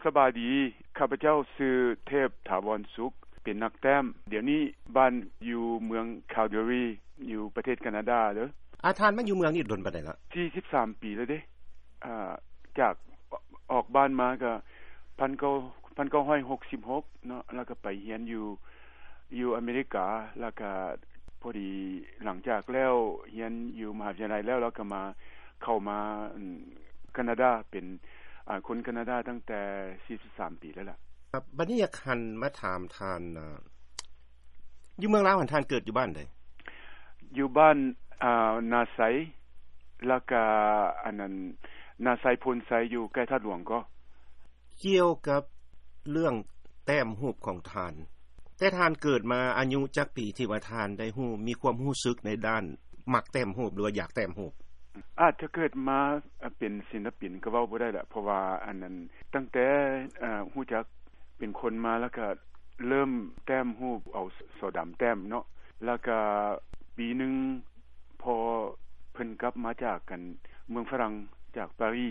ສະບາຍດີ, ຂ້າພະເຈົ້າຊື່ເທບ ຖາວອນສຸກ, ເປັນນັກແຕ້ມ. ດຽວນີ້ບ້ານຢູ່ເມືອງ Calgary ຢູ່ປະເທດການາດາເດີ. ອາ ທ່ານມາຢູ່ເມືອງນີ້ດົນປານໃດລະ? ສີ່ສິບສາມປີແລ້ວເດ້. ອາ ຈາກອອກບ້ານມາກໍພັນເກົ້າ ພັນເກົ້າຮ້ອຍຫົກສິບຫົກເນາະ, ແລ້ວກໍໄປຮຽນຢູ່ ຢູ່ອາເມລິກາ, ແລ້ວກໍພໍດີຫຼັງຈາກແລ້ວຮຽນຢູ່ມະຫາວິທະຍາໄລແລ້ວ, ແລ້ວກໍມາ ເຂົ້າມາ ອາ ການາດາ, ເປັນ ອາ ຄົນການາດາຕັ້ງແຕ່ສີ່ສິບສາມປີແລ້ວລະ. ບັດນີ້ຢາກຫັນມາຖາມທ່ານ ອາ ຢູ່ເມືອງລາວຫັ້ນ ທ່ານເກີດຢູ່ບ້ານໃດ? ຢູ່ບ້ານ ອາ ນາໄຊ, ແລ້ວກະ ອັນນັ້ນ ນາໄຊໂພນໄຊ ຢູ່ໃກ້ທາດຫຼວງກໍ. ກ່ຽວກັບເລື່ອງແຕ້ມຮູບຂອງທ່ານ, ແຕ່ທ່ານເກີດມາອາຍຸຈັກປີທີ່ວ່າທ່ານໄດ້ຮູ້ ມີຄວາມຮູ້ສຶກໃນດ້ານມັກແຕ້ມຮູບ ຫຼືວ່າຢາກແຕ້ມຮູບ? ອາດຈະເກີດມາເປັນສິນລະປິນກໍເວົ້າບໍ່ໄດ້ລະ, ເພາະວ່າອັນນັ້ນ ຕັ້ງແຕ່ ອາ ຮູ້ຈັກເປັນຄົນມາ ແລ້ວກະເລີ່ມແຕ້ມຮູບ ເອົາສໍດຳແຕ້ມເນາະ, ແລ້ວກະປີໜຶ່ງພໍ່ເພິ່ນກັບມາຈາກ ອັນ ເມືອງຝຣັ່ງ ຈາກປາຣີ,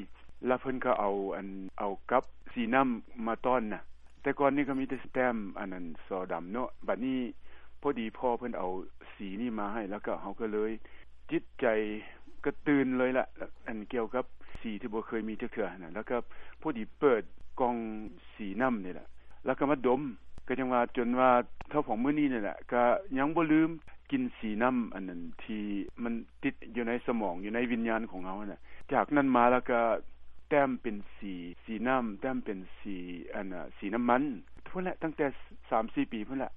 ແລ້ວເພິ່ນກໍເອົາ ອັນ ເອົາກັບສີນ້ຳມາຕ້ອນນະ. ແຕ່ກ່ອນນີ້ກໍມີແຕ່ແຕ້ມ ອັນນັ້ນ ສໍດຳເນາະ, ບັດນີ້ພໍດີພໍ່ເພິ່ນເອົາສີນີ້ມາໃຫ້ ແລ້ວກໍເຮົາກໍເລີຍຈິດໃຈກະຕື່ນເລີຍລະ ອັນ ກ່ຽວກັບສີທີ່ບໍ່ເຄີຍມີຈັກເທື່ອຫັ້ນນະ. ແລ້ວກໍພໍດີເປີດກ່ອງສີນ້ຳນີ້ລະ ແລ້ວກໍມາດົມ, ກໍຍັງວ່າ ຈົນວ່າເທົ່າຂອງມື້ນີ້ນີ້ແຫຼະ ກໍຍັງບໍ່ລືມກິ່ນສີນ້ຳອັນນັ້ນ ທີ່ມັນຕິດຢູ່ໃນສະໝອງ ຢູ່ໃນວິນຍານຂອງເຮົາຫັ້ນນະ. ຈາກນັ້ນມາແລ້ວກໍແຕ້ມເປັນສີ ສີນ້ຳ, ແຕ້ມເປັນສີ ອັນ ອາ ສີນ້ຳມັນ ພຸ້ນແຫຼະ, ຕັ້ງແຕ່ສາມສີ່ປີພຸ້ນແຫຼະ.